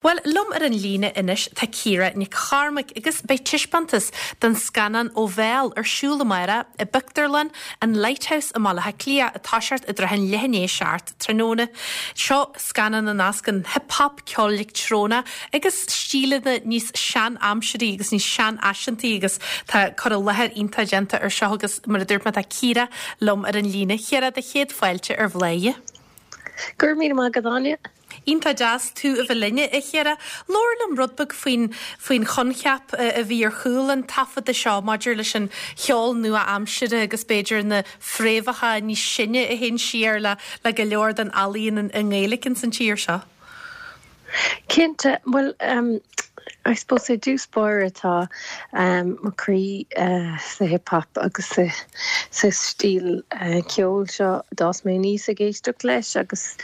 Bhuel, liom ar an líne anois tá Ciara Nic Chormaic agus beidh taispeántas den scannán Ó Bhéal ar siúl amárach i bpictiúrlann an Lighthouse i mBaile Átha Cliath ag toiseacht i dtrátha an leath i ndiaidh 7 tráthnóna. Seo scannán a nascann hip hop, ceol leictreonach agus stíleanna níos sean-aimsirí agus níos seanfhaiseantaí agus tá cur i láthair iontach déanta ar seo agus mar a dúirt mé tá Ciara liom ar an líne. Ciara, do chéad fáilte ar Bhláth. Go raibh míle maith agat, Áine. Iontach deas tú a bheith linn, a Chiara. Labhair liom rud beag faoin faoin choincheap a bhí ar chúl an taifeadta seo maidir leis an cheol nua-aimsire agus b'fhéidir na fréamhacha níos sine a théann siar le le go leor den ealaíon i nGaeilge ins an tír seo. Cinnte. Bhuel, I suppose i dtús báire tá mo chroí sa hip hop agus sa stíl ceoil seo. D'fhás mé aníos ag éisteacht leis agus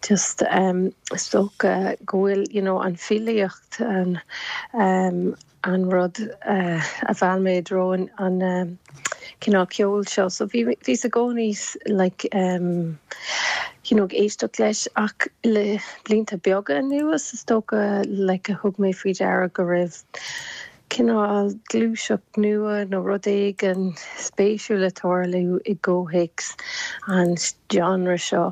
Just is dócha go bhfuil you know an filíocht an an rud a mheall mé i dtreo an cineál ceoil seo. So bhí bhíos i gcónaí like you know ag éisteacht leis ach le blianta beaga anuas is dócha like a thug mé faoi deara go raibh cineál gluaiseacht nua nó rud éigin spéisiúil ag tarlú i gcomhthéacs an genre seo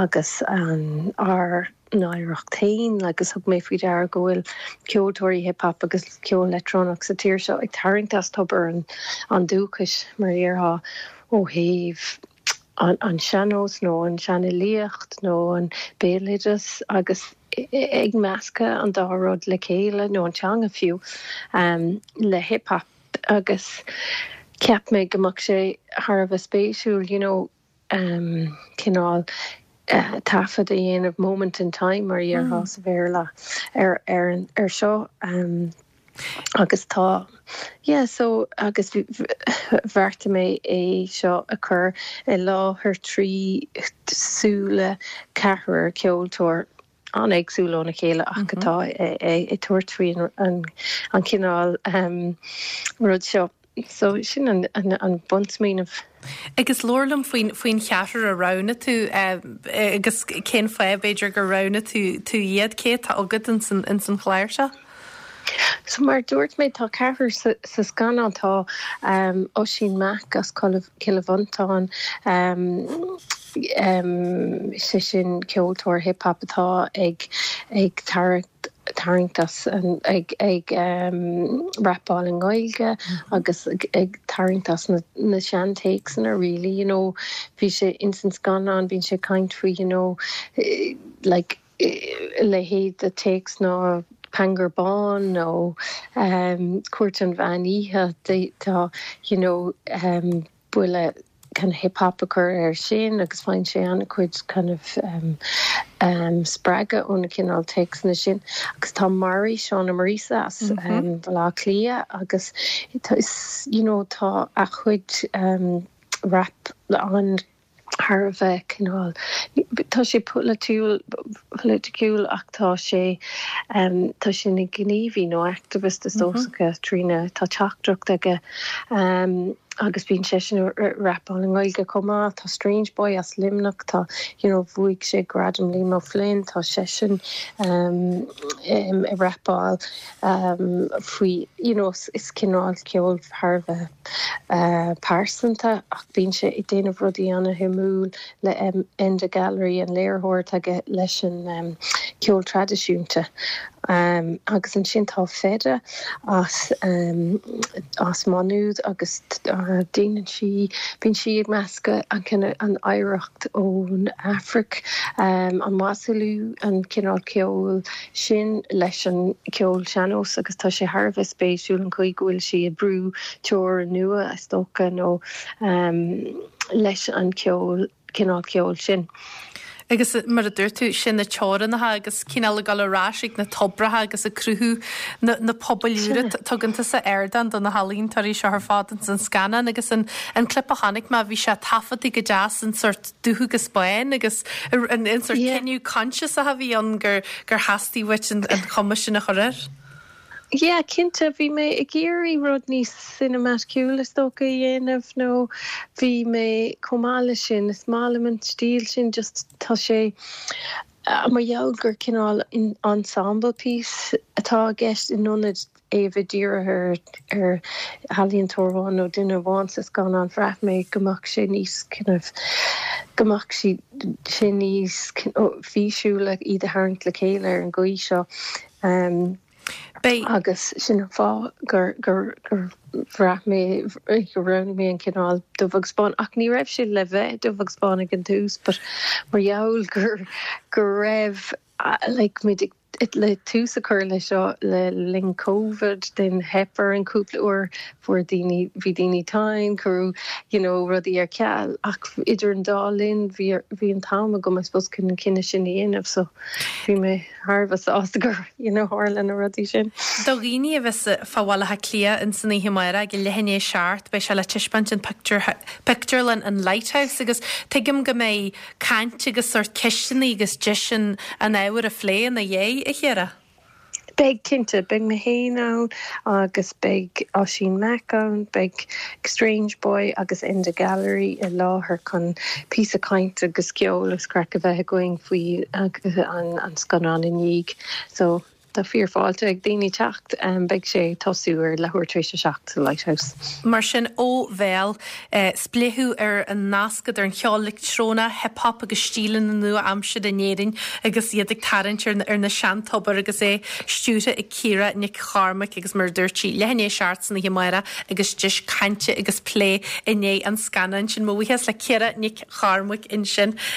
agus ár n-oidhreacht féin agus thug mé faoi deara go bhfuil ceoltóirí hip hop agus ceol leictreonach sa tír seo ag tarraingt as tobar an dúchais, mar a déarfá, ó thaobh an sean-nós nó an seanfhilíocht nó an béaloideas agus ag meascadh an dá rud le chéile, nó an teanga fiú, le hip hop agus cheap mé go mbeadh sé thar a bheith spéisiúil you know cineál taifead a dhéanamh, moment in time mar a déarfá sa Bhéarla, ar ar seo. Agus tá, yeah, so agus bheartaigh mé é seo a chur i láthair trí súile ceathrar ceoltóir an-éagsúil óna chéile ach atá ag tabhairt faoi an chineál rud seo. So sin an bunsmaoineamh. Agus labhair liom faoin faoin cheathrar a roghnaigh tú agus cén fáth b'fhéidir gur roghnaigh tú tú iad, cé atá agat ins an ins an chlár seo? So mar a dúirt mé tá ceathrar sa sa scannán, tá Oisín Mac as Cill Mhantáin, sé sin ceoltóir hip hop atá ag ag tarraingt tarraingt as an ag ag rapáil i nGaeilge agus ag tarraingt as na na seantéacsanna really you know bhí sé ins an scannán bíonn sé ag caint faoi you know like a leithéid de téacs ná Pangur Bán nó Cúirt an Mheán Oíche tá you know buille kind of hip hop a chur air sin agus faigheann sé an-chuid kind of spreagadh ó na cineál téacsanna sin. Agus tá Mary, Shauna Marisa as Baile Átha Cliath agus tá you know tá a chuid rap an thar a bheith cineál, tá sé polaitiúil, politiciúil ach tá sé, tá sé ina ghníomhaí nó activist is dócha trína, tá teachtaireacht aige agus bíonn seisean ag rapáil i nGaeilge chomh maith. Tá Strange Boy as Luimneach, tá, you know, bhuaigh sé Gradam Liam O'Flynn, tá seisean ag rapáil faoi, you know, is cineál ceoil thar a bheith pearsanta ach bíonn sé ag déanamh rudaí ana-shuimiúil le Enda Gallery, an léiritheoir atá aige leis an ceol traidisiúnta. Agus ansin tá Feda as as Maigh Nuad agus déanann sí, bíonn sí ag meascadh an cineál, an oidhreacht ón Afraic, an Wassoulou, an cineál ceoil sin leis an ceol sean-nós agus tá sé thar a bheith spéisiúil an chaoi go bhfuil sí ag brú teorainn nua, is dócha, nó leis an ceol, cineál ceoil sin. Agus mar a dúirt tú, sin na teorainneacha agus cineál ag dul ar ais ag na toibreacha agus ag cruthú na, na pobail úra. Tugann tusa ardán do na healaíontóirí seo ar fad ins an scannán agus an, an clip a chonaic mé, bhí sé taifeadta go deas in sort dubh agus bán agus an, an sort cinneadh coinsiasach a bhí ann gur, gur theastaigh uait an, an chuma sin a chur air. Yeah, cinnte, bhí mé ag iarraidh rud níos cinematiciúil is dócha a dhéanamh nó bhí mé, chomh maith leis sin, is maith liom an stíl sin, just tá sé. Mar gheall gur cineál ensemble piece atá i gceist in ionad é a bheith dírithe ar ealaíontóir amháin nó duine amháin sa scannán, bhraith mé go mbeadh sé níos kind of, go mbeadh sé níos físiúla iad a tharraingt le chéile ar an gcaoi seo. Beidh. Agus sin an fáth gur bhraith mé gur roghnaigh mé an cineál dubh agus bán. Ach ní raibh sé le bheith dubh agus bán ag an tús but mar gheall gur go raibh like muid ag le tús a chur le seo le linn Covid then theip orainn cúpla uair fuair daoine bhí daoine tinn cuireadh you know rudaí ar ceal ach idir an dá linn bhí bhí an t-am agam I suppose chun an cinneadh sin a dhéanamh so bhí mé thar a bheith sásta gur you know tharla na rudaí sin. Do dhaoine a bheas fá Bhaile Átha Cliath ins an oíche amárach ag a leath i ndiaidh a 7, beidh sé le taispeáint in pictiúr pictiúrlann an Lighthouse agus tuigim go mbeidh caint agus sórt ceisteanna agus deis an an ábhar a phlé ina dhiaidh, a Chiara. Beidh, cinnte. Beidh mé féin ann agus beidh Oisín Mac ann, beidh Strange Boy agus Enda Gallery i láthair chun píosa cainte agus ceol agus craic a bheith againn faoi an scannán i ndiaidh. So, tá fíor fáilte ag daoine teacht. Beidh sé ag tosú ar leathuair tar éis a 7 sa Lighthouse. Mar sin, ó bhéal, spléachadh ar an nasc idir an cheol leictreonach, hip hop agus stíleanna nua-aimseartha in Éirinn agus iad ag tarraingt ar na seantobair agus é stiúrtha ag Ciara Nic Chormaic agus mar a dúirt sí, leath i ndiaidh a 7 san oíche amárach agus deis cainte agus plé i ndiaidh an scannáin sin. Mo bhuíochas le Ciara Nic Chormaic ansin.